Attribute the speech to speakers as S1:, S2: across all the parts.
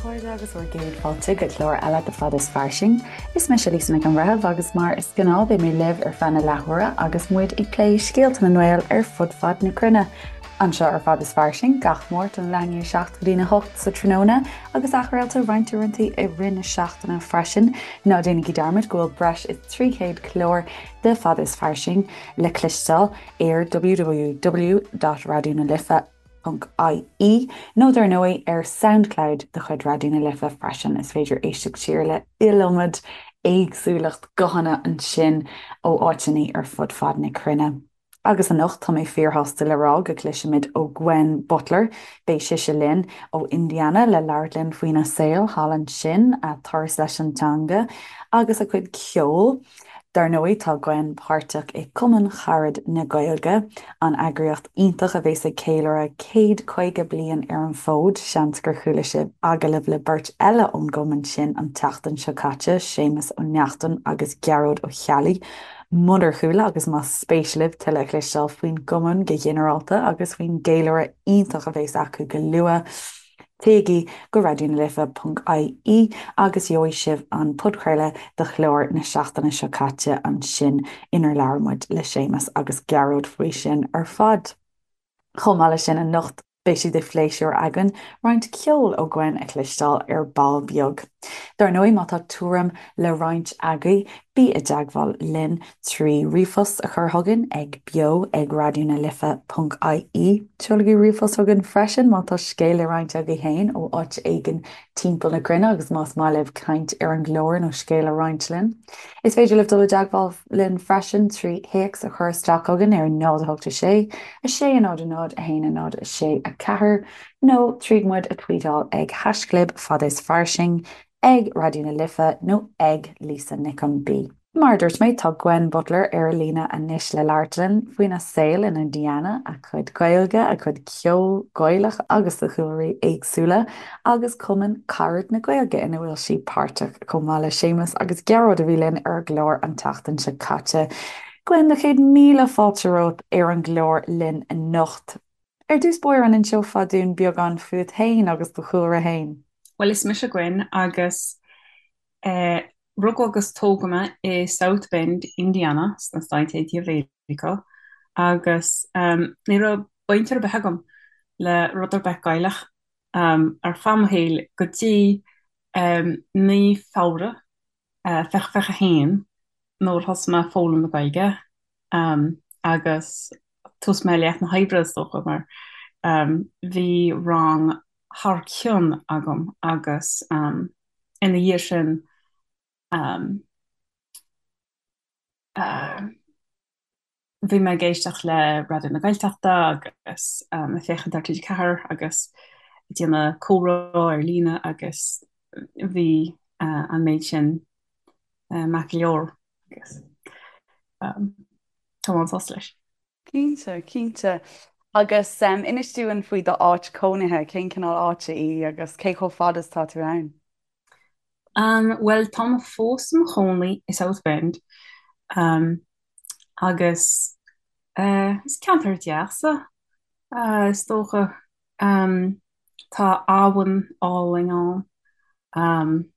S1: chairde agus bhur gcéad fáilte go clár eile de Fad is Fairsing. Is mise Lisa Nic an Bhreithimh agus mar is gnáth beidh mé libh ar feadh na leathuaire agus muid ag plé scéalta na nGael ar fud fad na cruinne. Anseo ar Fad is Fairsing gach Máirt ón leath i ndiaidh 7 go dtína 8 sa tráthnóna agus athchraolta roinnt uaireanta i rith na seachtaine freisin. Ná déanaigí dearmad go bhfuil breis is 300 clár de Fad is Fairsing le cloisteáil ar www.raidionalife.ie nó dar ndóigh ar Soundcloud de chuid Raidió na Life freisin. Is féidir éisteacht siar le iliomad éagsúlacht guthanna ansin ó áiteanna ar fud fad na cruinne. Agus anocht tá mé fíorshásta le rá go gcloisfimid ó Gwen Butler. Beidh sise linn ó Indiana le labhairt linn faoina saol thall ansin, a turas leis an teanga agus a cuid ceoil. Dar ndóigh, tá Gwen páirteach i Cumann Charad na Gaeilge, an eagraíocht iontach a bhéas ag ceiliúradh 150 bliain ar an bhfód. Seans gur chuala sibh agallamh le beirt eile ón gcumann sin an tseachtain seo caite, Séamus Ó Neachtain agus Gearóid Ó Ceallaigh. Munar chuala agus más spéis libh tuilleadh a chloisteáil faoin gcumann go ginearálta agus faoin gceiliúradh iontach a bhéas acu go luath, Téigí go raidionalife.ie agus gheobhaidh sibh an podchraoladh de chlár na seachtaine seo caite ansin inar labhair muid le Séamus agus Gearóid faoi sin ar fad. Chomh maith leis sin anocht beidh sé de phléisiúr againn roinnt ceoil ó Gwen a chloisteáil ar ball beag. Dar ndóigh má tá tuairim le roinnt agaibh bí i dteagmháil linn 3 ríomhphost a chur chugainn ag beo ag raidionalife.ie. Seolaigí ríomhphost chugainn freisin má tá scéal le roinnt agaibh féin ó áit éigin timpeall na cruinne agus más maith libh caint ar an gclár nó scéal a roinnt linn. Is féidir libh dul i dteagmháil linn freisin 3 théacs a chur isteach chugainn ar 0 8 6 6 0 0 1 0 6 4 nó tríd muid a tweetáil ag haischlib fad is fairsing, ag Raidió na Life nó ag Lisa Nic an B. Mar a dúirt mé, tá Gwen Butler ar líne anois le labhairt linn faoina saol in Indiana, a cuid Gaeilge, a cuid ceoil Gaelach agus de chúlraí éagsúla, agus Cumann Carad na Gaeilge ina bhfuil sí páirteach, chomh maith le Séamus agus Gearóid a bhí linn ar an gclár an tseachtain seo caite. Gwen, na chéad míle fáilte romhat ar an gclár linn anocht. Ar dtús báire, an inseofá dúinn beagán fút féin agus do chúlra féin?
S2: Bhuel, is mise Gwen agus eh, Rugadh agus tógadh mé i South Bend, Indiana, sna Stáit Aontaithe Mheiriceá, agus ní raibh baint ar bith agam le rud ar bith Gaelach ar feadh mo shaoil go dtí mí Feabhra 2021 nuair a thosaigh mé ag foghlaim na Gaeilge agus tús mé leath na hoibre is dócha mar bhí rang thar cionn agam agus ina dhiaidh sin bhí mé ag éisteacht le Raidió na Gaeltachta agus ag féachaint ar TG4 agus ag déanamh comhrá ar líne agus bhí an méid sin maith go leor agus tá mé an-sásta leis.
S1: Cinnte, cinnte. Agus inis dúinn faoi d'áit cónaithe, cén cineál áite í agus cé chomh fada is atá tú ann?
S2: Bhuel, tá mé fós i mo chónaí i South Bend agus is ceantar deas é, is dócha. Tá abhainn álainn ann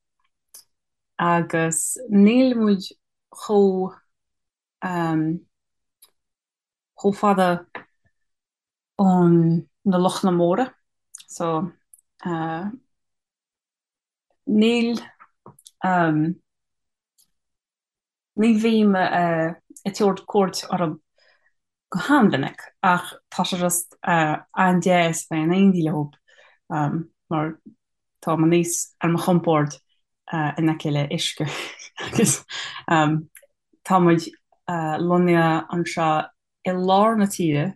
S2: agus níl muid chomh chomh fada ó na lochanna móra so níl ní bhím ag tabhairt cuairt orthu go han-mhinic ach tá sé just an-deas bheith in éindí leo mar táim níos ar mo chompord in aice le uisce agus tá muid lonnaithe anseo i lár na tíre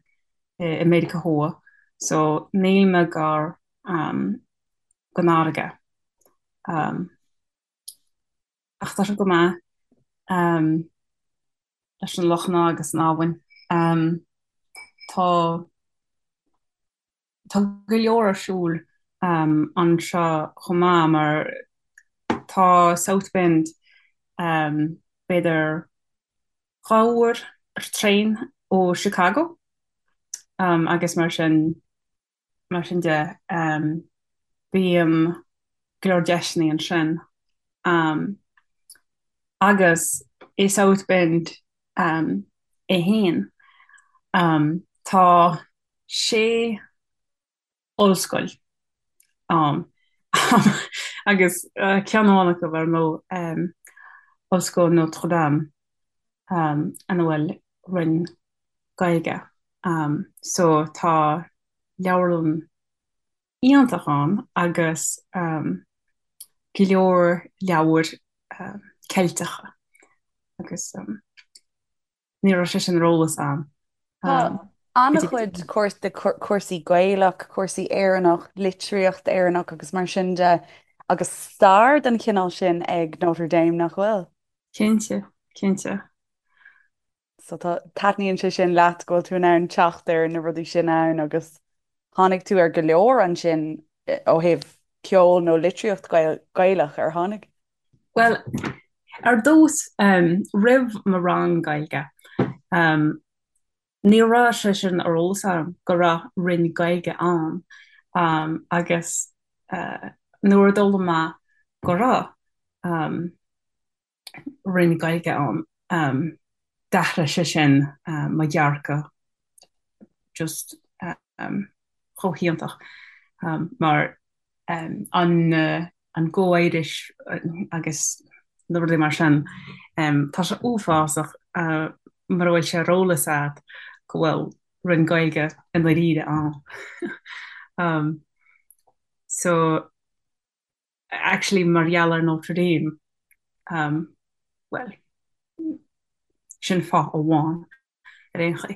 S2: i Meiriceá Thuaidh so níl mé gar don fharraige. Ach tá sé go maith leis na lochanna agus an abhainn. Tá Tá go leor ar siúl anseo chomh maith mar tá South Bend b'fhéidir 2 uair ar traein ó Chicago agus mar sin mar sin de bím. go leor deiseanna ansin. Agus i South Bend é féin, tá sé ollscoil ann agus ceann amháin acu ar ndóigh, Ollscoil Notre Dame, ina bhfuil roinn Gaeilge. So tá leabharlann iontach ann agus go leor leabhair Ceilteacha agus ní raibh sé sin ar eolas a'm.
S1: Tá an-chuid cúrsaí Gaelach, cúrsaí Éireannach, litríocht Éireannach agus mar sin de agus stair den chineál sin ag Notre Dame, nach bhfuil?
S2: Cinnte, cinnte.
S1: So tá, taitníonn sé sin leat go bhfuil tú in ann teacht ar na rudaí sin ann agus tháinig tú ar go leor ansin ó thaobh ceol nó litríocht Gaelach, ar tháinig?
S2: Bhuel, ar dtús, roimh mo rang Gaeilge, ní raibh sé sin ar eolas agam go raibh roinn Gaeilge ann agus nuair a d'fhoghlaim mé go raibh, roinn Gaeilge ann. D'athraigh sé sin mo dhearcadh just chomh hiontach mar an an Go Irish agus na rudaí mar sin, tá sé uafásach mura bhfuil sé ar eolas agat go bhfuil roinn Gaeilge i ndáiríre ann. So. actually mar gheall ar Notre Dame, bhuel, sin fáth amháin ar aon chaoi,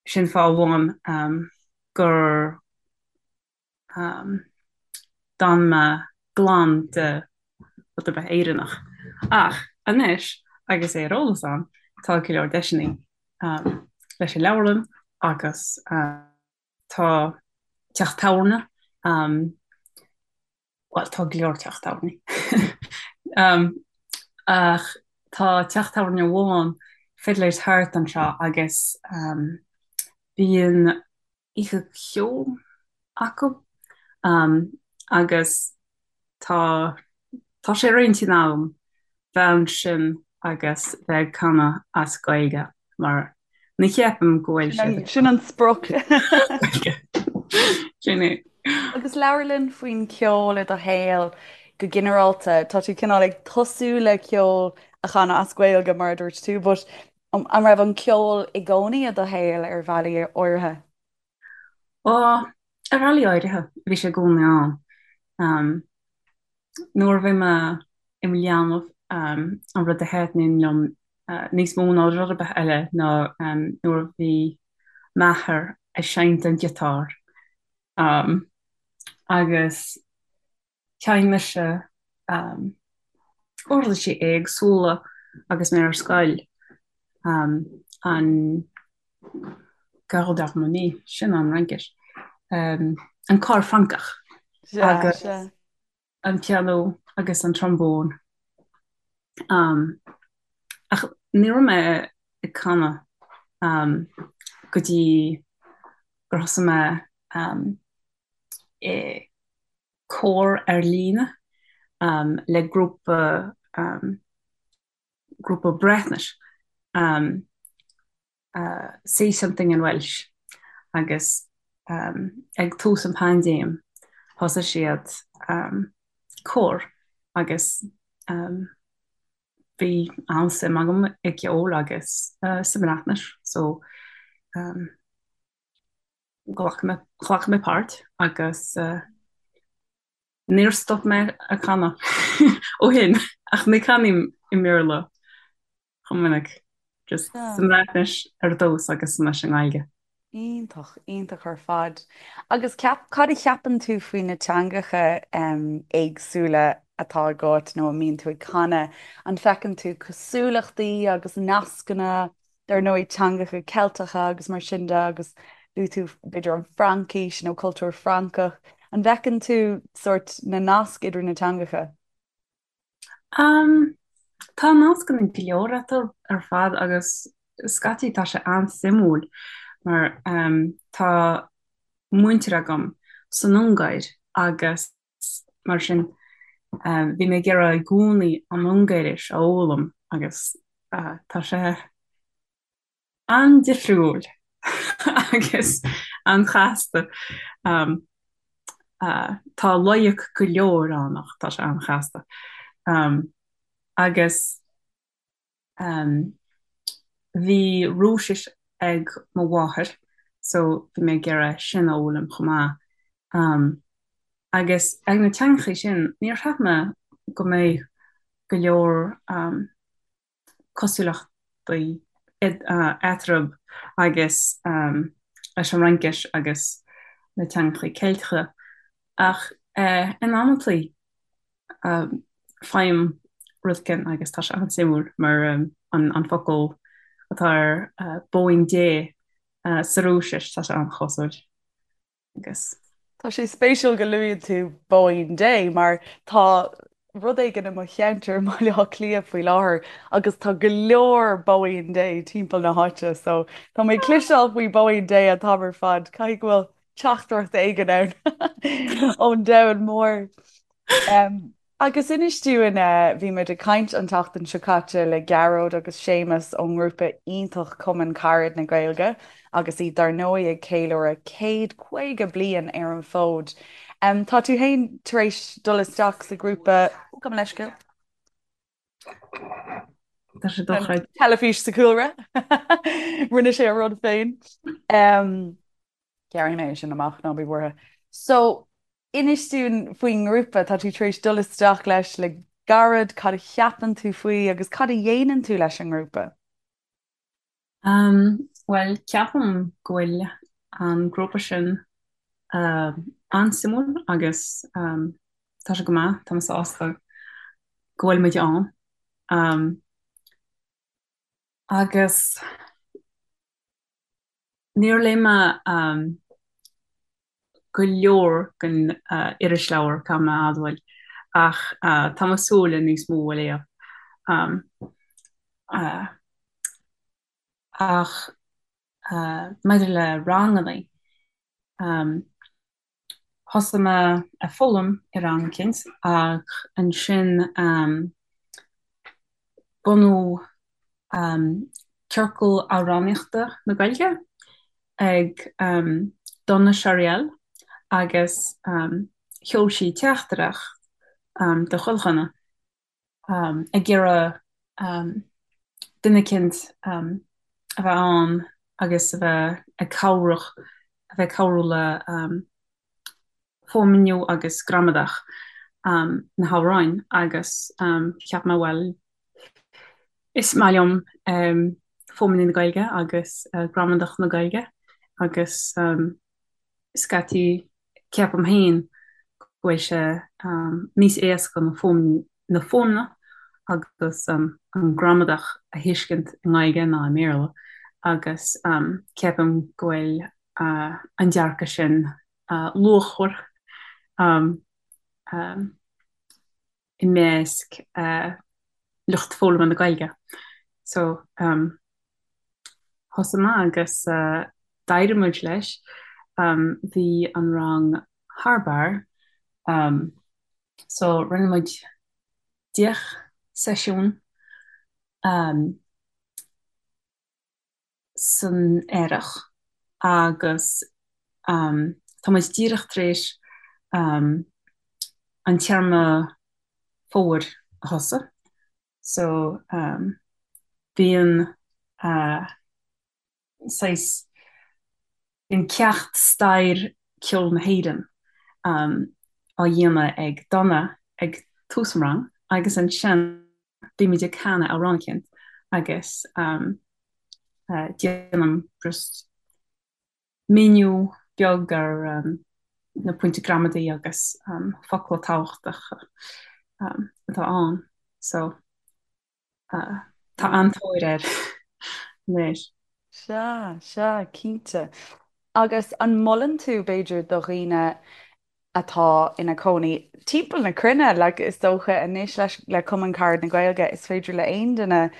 S2: sin fáth amháin gur d'fhan mé glan de rud ar bith Éireannach. Ach anois, agus é ar eolas agam, tá go leor deiseanna leis an leabharlann agus. Tá teach tábhairne, bhuel tá go leor teach tábhairní, ach tá teach tábhairne amháin, Fiddler's Hearth anseo agus bíonn oíche cheoil acu agus tá tá sé ar intinn agam bheith ansin agus bheith ag canadh as Gaeilge mar ní cheapaim go bhfuil siad
S1: ag Sin an sprioc.
S2: Gaeilge. Sin é.
S1: Agus labhair linn faoin cheol i do shaol go ginearálta. Tá tú cineál ag tosú le ceol a chanadh as Gaeilge mar a dúirt tú, but an raibh an ceol i gcónaí i do shaol ar bhealaí áirithe?
S2: Ó, ar bhealaí áirithe, bhí sé i gcónaí ann. Nuair a bhí mé i mo leanbh, an rud a thaitníonn liom níos mó ná rud ar bith eile ná nuair a bhí m'athair ag seinnt an giotár agus Sheinn mise uirlisí éagsúla agus mé ar scoil, an cor d'harmonie, sin an Fhraincis, an cor Francach agus an pianó agus an trombón. Ach ní raibh mé ag canadh go dtí gur thosaigh mé i cór ar líne le grúpa grúpa Breatnais Say Something in Welsh agus ag tús an paindéim thosaigh siad cór agus bhí an-suim agam i gceol agus sa mBreatnais so Ghlac mé, ghlac mé páirt agus níor stop mé ag canadh ó shin ach ní chanaim i mBéarla chomh minic, just sa mBreatnais ar dtús agus anois i nGaeilge.
S1: Iontach, iontach ar fad. Agus ceap, cad a cheapann tú faoi na teangacha éagsúla atá agat nó a mbíonn tú ag canadh? An bhfeiceann tú cosúlachtaí agus nascanna dar ndóigh teangacha Ceilteacha agus mar sin de agus luaigh tú b'fhéidir an Fhraincis nó cultúr Francach. An bhfeiceann tú sórt na naisc idir na teangacha?
S2: Um, tá nascanna go leor eatarthu ar fad agus scaití tá sé an-suimiúil mar um, tá muintir agam san Ungáir agus. Mar sin, bhí mé ag iarraidh i gcónaí an Ungáiris a fhoghlaim agus tá sé an-difriúil agus an-chasta. Tá loighic go leor ann ach tá sé an-chasta. Agus bhí Rúisis ag mo mháthair so bhí mé ag iarraidh sin a fhoghlaim chomh maith. Agus ag na teangachaí sin níor cheap mé go mbeadh go leor cosúlachtaí eatarthu agus leis an Fhraincis agus na teangachaí Ceilteacha ach in amantaí faighim rud éicint agus tá sé an-suimiúil mar an focal atá ar bóín Dé sa Rúisis, tá sé an-chosúil.
S1: Agus. Tá sé spéisiúil go luaíonn tú Bóín Dé mar tá rud éigin i mo cheantar i mBaile Átha Cliath faoi láthair agus tá go leor Bóín Dé timpeall na háite so tá mé ag cloisteáil faoi Bóín Dé an t-am ar fad. Caithfidh go bhfuil teachtaireacht éigin ann ón domhan mór. Agus inis dúinn, bhí muid ag caint an tseachtain seo caite le Gearóid agus Séamus ón ngrúpa iontach Cumann Carad na Gaeilge agus iad dar ndóigh ag ceiliúradh céad 50 bliain ar an bhfód. Tá tú féin tar éis dul isteach sa ghrúpa, ó gabh mo leithscéal.
S2: Tá sé dochreidte.
S1: Teilifís sa chúlra. Rinne sé a rud féin. Gearrfaidh mé é sin amach, ná bí buartha. So, inis dúinn faoin ngrúpa, tá tú tar éis dul isteach leis le gairid, cad a cheapann tú faoi agus cad a dhéanann tú leis an ngrúpa?
S2: Bhuel, ceapaim go bhfuil an grúpa sin an-suimiúil agus tá sé go maith, tá mé sásta go bhfuil muid ann. Agus níor léigh mé go leor den irisleabhar, caithfidh mé a admháil, ach tá mé ag súil le níos mó a léamh. Ach maidir le ranganna, Thosaigh mé ag foghlaim i rang eicínt ach ansin bunaíodh Ciorcal Amhránaíochta na Gaeilge ag Donna Chariell agus sheol sí teachtaireacht do chuile dhuine ag iarraidh duine eicínt a bheith ann agus a bheith ag cabhrach, a bheith ag cabhrú le fuaimniú agus gramadach na hamhráin agus cheap mé bhuel is maith liom fuaimniú na Gaeilge agus gramadach na Gaeilge agus scaití ceapaim féin go bhfuil sé níos éasca na na fuaimneanna agus an gramadach a thuiscint i nGaeilge ná i mBéarla agus ceapaim go bhfuil an dearcadh sin luachmhar i measc lucht foghlama na Gaeilge. So thosaigh mé agus d'éirigh muid leis. Bhí an rang thar barr. So rinne muid 10 seisiún san earrach agus tá muid díreach tar éis an téarma fómhair a thosú so bíonn saghas bíonn ceacht stair ceol na hÉireann á dhéanamh ag Donna ag tús an rang agus ansin bímid ag canadh amhrán eicínt agus déanaim just míniú beag ar na pointí gramadaí agus focla tábhachtacha atá ann so tá an-tóir air anois.
S1: Sea, sea, cinnte. Agus an molann tú, b'fhéidir, do dhaoine atá ina cónaí timpeall na cruinne, like, is dócha anois leis, le Cumann Carad na Gaeilge, is féidir le aon duine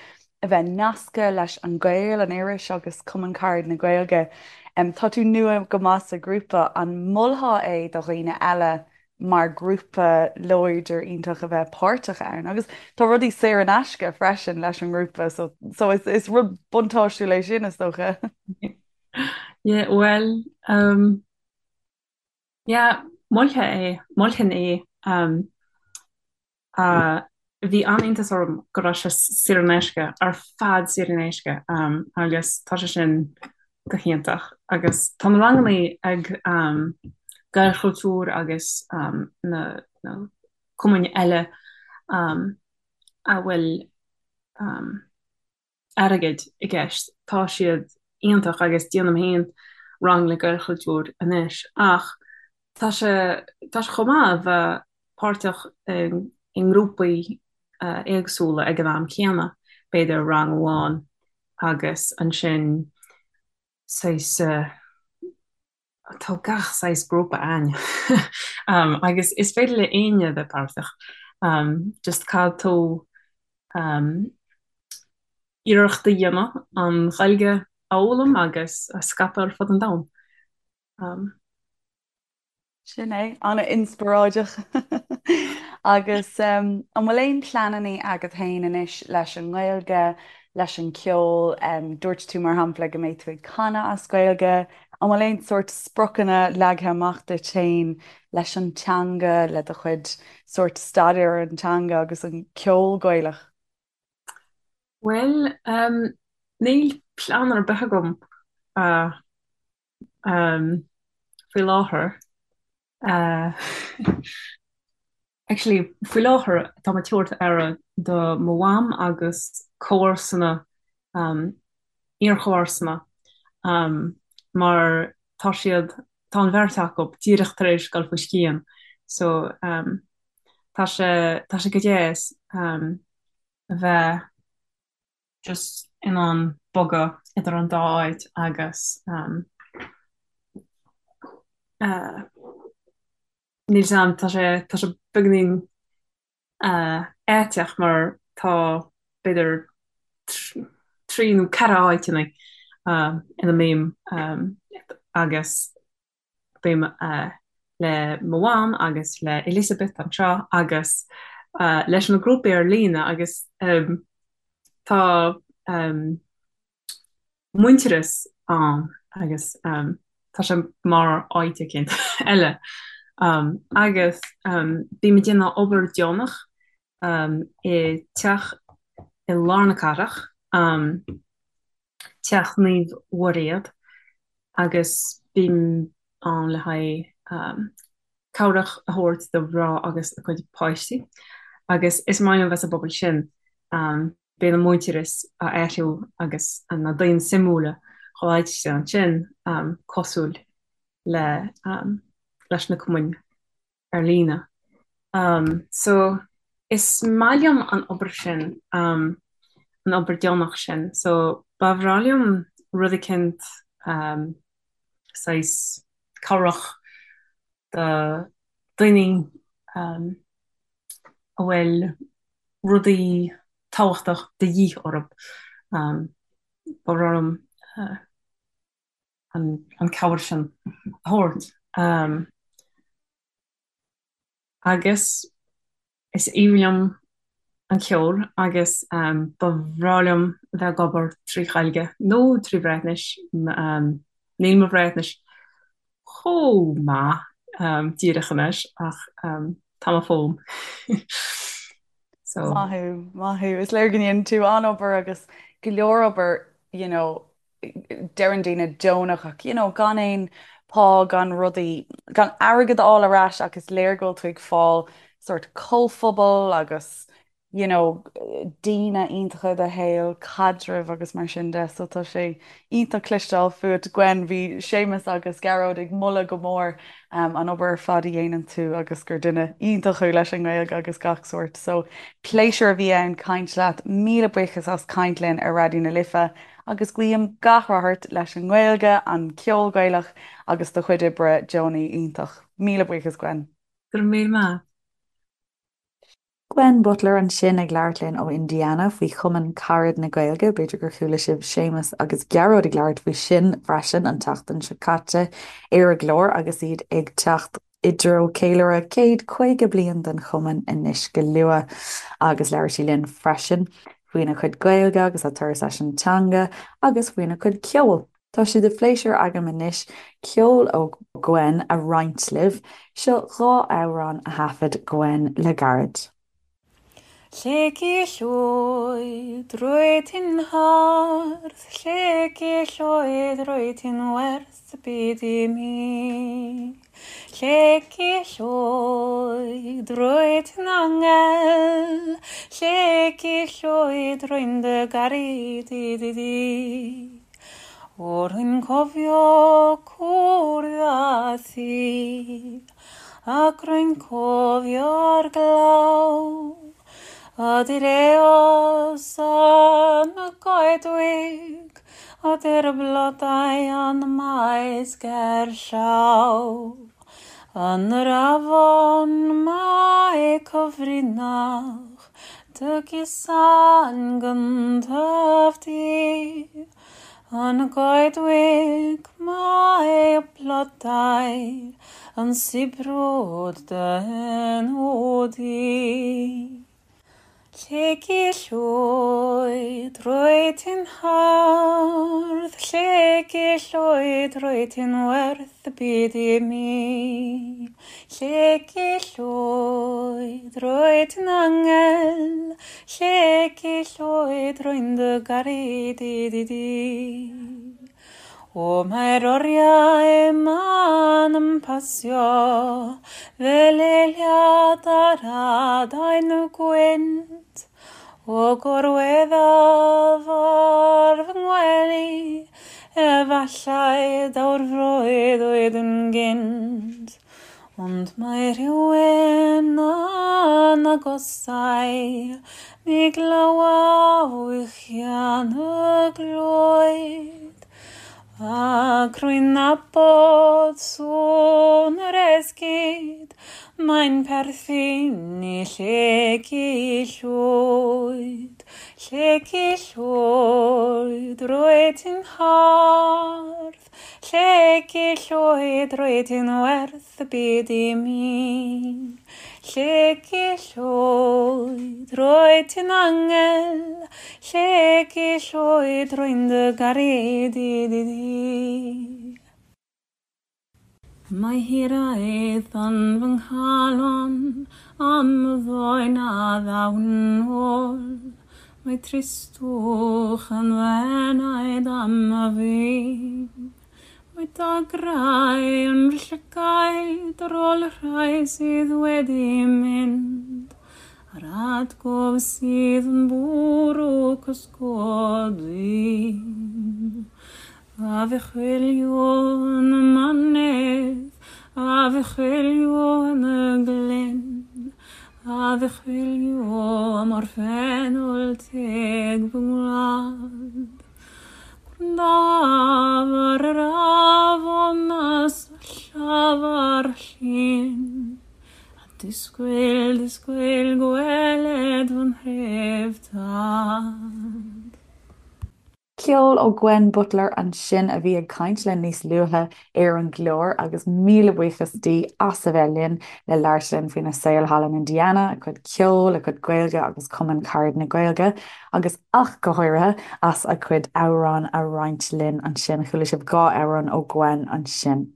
S1: a bheith nasctha leis An Gael, an iris, agus Cumann Carad na Gaeilge. Tá tú nua go maith sa ghrúpa, an molfá é do dhaoine eile? mar grúpa láidir iontach a bheith páirteach ann. Agus tá rudaí saor in aisce freisin leis an ngrúpa so so is is rud buntáistiúil é sin is dócha.
S2: Yeah, well, um, yeah, mholfainn é, mholfainn é. Um, Bhí an-iontas orm go raibh sé saor in aisce, ar fad saor in aisce, agus tá sé sin go hiontach. Agus tá na ranganna ag Gaelchultúr agus na cumainn eile a bhfuil airgead i gceist. Tá siad iontach agus déanaim féin rang le Gaelchultúr anois ach tá sé tá sé chomh maith a bheith páirteach i ngrúpaí éagsúla ag an am céanna, b'fhéidir rang amháin agus ansin saghas Tá gach saghas grúpa ann agus is féidir le éinne a bheith páirteach. Just caithfidh tú iarracht a dhéanamh an Ghaeilge a fhoghlaim agus a scaipeadh ar fud an domhain.
S1: Sin é, an-inspioráideach. Agus an bhfuil aon pleananna agat féin anois leis an nGaeilge, leis an gceol? Dúirt tú, mar shampla, go mbeidh tú ag canadh as Gaeilge. An bhfuil aon sórt spriocanna leagtha amach duit féin leis an teanga, le do chuid sórt staidéar ar an teanga agus an ceol Gaelach?
S2: Bhuel, níl plean ar bith agam. Faoi láthair, actually, faoi láthair tá mé ag tabhairt aire do mo mham agus comharsana, iarchomharsana, mar tá siad, tá an bheirt acu díreach tar éis dul faoi scian so tá sé, tá sé go deas a bheith just in ann bogadh idir an dá áit agus níl 'fhios a'm, tá sé, tá sé beagáinín aiteach mar tá b'fhéidir trí nó ceithre áiteanna ina mbím agus Bím le mo mham agus le Elizabeth anseo agus leis na grúpaí ar líne agus tá muintearas ann agus tá sé mar áit éicint eile. Agus bím ag déanamh obair deonach i teach i lár na cathrach. Teach Naomh Mhuiréad agus bím ann le haghaidh cabhrach a thabhairt do mhná agus a gcuid páistí agus is maith liom bheith sa bpobal sin. Bíonn an muintearas á athrú agus na daoine suimiúla chomh háitithe ansin cosúil le leis na cumainn ar líne. So, is maith liom an obair sin, an obair deonach sin. So, ba bhreá liom rud eicínt, saghas cabhrach do daoine a bhfuil rudaí tábhachtach de dhíth orthu. Ba bhreá liom an cabhair sin a thabhairt. Agus is aoibhinn liom an ceol agus ba bhreá liom bheith ag obair trí Ghaeilge nó trí Bhreatnais. Níl mo Bhreatnais chomh maith díreach anois ach tá mé ag foghlaim.
S1: So. Maith thú, maith thú. Is léir go ndéanann tú an-obair agus go leor obair, you know, deireann daoine deonach ach you know gan aon pá gan rudaí, gan airgead a fháil ar ais ach is léir go bhfuil tú ag fáil sort comhphobal agus you know daoine iontacha i do shaol, caidrimh agus mar sin de so tá sé iontach cloisteáil fúat Gwen, bhí Séamus agus Gearóid ag moladh go mór an obair ar fad a dhéanann tú agus gur duine iontach thú leis an nGaeilge agus gach sórt so pléisiúr a bhí ann caint leat, míle buíochas as caint linn ar Raidió na Life. Agus guím gach rath ort leis an nGaeilge, an ceol Gaelach agus do chuid oibre deonaí iontach. Míle buíochas Gwen.
S2: Go raibh míle maith.
S1: Gwen Butler ansin ag labhairt linn ó Indiana faoi Chumann Carad na Gaeilge. B'fhéidir gur chuala sibh Séamus agus Gearóid ag labhairt faoi sin freisin an tseachtain seo caite ar an gclár agus iad ag teacht. i dtreo ceiliúradh céad 50 bliain den chumann anois go luath agus labhair sí linn freisin faoina cuid Gaeilge agus a turas leis an teanga agus faoina cuid ceoil. Tá sé de phléisiúr agam anois ceol ó Gwen a roinnt libh. Seo 2 amhrán a thaifead Gwen le gairid.
S2: Lleucu Llwyd, rwyt ti'n hardd, Lleucu Llwyd, rwyt ti'n werth y byd i mi. Lleucu Llwyd, rwyt ti'n angel, Lleucu Llwyd, rwy'n dy garu di, di, di. O, rwy'n cofio cwrdd â thi, Ac rwy'n cofio'r glaw, Ydy'r eos yn y goedwig, Ydy'r blodau yn y maes gerllaw. Yn yr afon mae cyfrinach, Dy gusan gyntaf di. Yn y goedwig mae y blodau yn sibrwd dy enw di. Lleucu Llwyd, rwyt ti'n hardd, Lleucu Llwyd, rwyt ti'n werth y byd i mi. Lleucu Llwyd, rwyt ti'n angel, Lleucu Llwyd, rwy'n dy garu di, di, di. O, mae'r oriau yma'n ymhasio fel eiliad ar adain y gwynt. O gorweddaf ar fy ngwely, efallai daw'r freuddwyd yn gynt. Ond mae rhywun yn agosau, mi glywaf wichian y glwyd, ac rwy'n nabod sŵn yr esgid, Mae'n perthyn i Lleucu Llwyd, Lleucu Llwyd, rwyt ti'n hardd, Lleucu Llwyd, rwyt ti'n werth y byd i mi. Lleucu Llwyd, rwyt ti'n angel, Lleucu Llwyd, rwy'n dy garu di, di, di. Mae hiraeth yn fy nghalon am y ddoe na ddaw'n ôl. Mae tristwch yn fy enaid am y fi. Mae dagrau yn fy llygaid ar ôl y rhai sydd wedi mynd, a'r atgof sydd yn bwrw cysgodi. A fi chwilio yn y mynydd, a fi chwilio yn y glyn, A fi chwilio am orffennol teg fy ngwlad. Gwrandaf ar yr afon a syllaf ar y llyn, A disgwyl, disgwyl gweled fy nhref tad.
S1: Ceol ó Gwen Butler ansin a bhí ag caint linn níos luaithe ar an gclár agus míle buíochas di as a bheith linn le labhairt linn faoina saol thall in Indiana, a cuid ceoil, a cuid Gaeilge agus Cumann Carad na Gaeilge agus ach go háirithe as a cuid amhrán a roinnt linn ansin. Chuala sibh 2 amhrán ó Gwen ansin.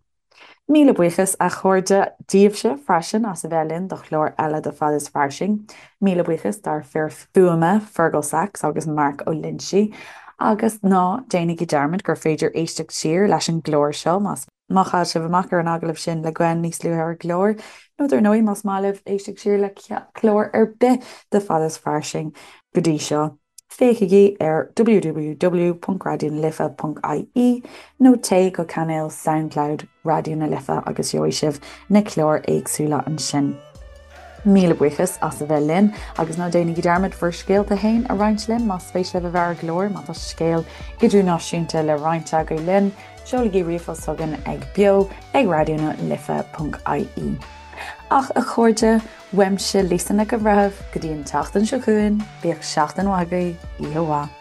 S1: Míle buíochas, a chairde, daoibhse freisin as a bheith linn do chlár eile de Fad is Fairsing. Míle buíochas dár fir fuaime, Fergal Sachs agus Mark Ó Loinsigh. Agus ná déanaigí dearmad gur féidir éisteacht siar leis an gclár seo más má chaill sibh amach ar an agallamh sin le Gwen níos luaithe ar an gclár, nó dar ndóigh más maith libh éisteacht siar le clár ar bith de Fad is Fairsing go dtí seo. Féachaigí ar www.raidionalife.ie nó téigh go cainéal Soundcloud Raidió na Life agus gheobhaidh sibh na cláir éagsúla ansin. Míle buíochas as a bheith linn agus ná déanaigí dearmad bhur scéalta féin a roinnt linn más spéis libh a bheith ar an gclár, má tá scéal idirnáisiúnta le roinnt agaibh linn, seolaigí ríomhphost chugainn ag beo ag raidionalife.ie. Ach a chairde, Uaimse, Lisa Nic an Bhreithimh, go dtí an tseachtain seo chugainn, bíodh seachtain mhaith agaibh, oíche mhaith.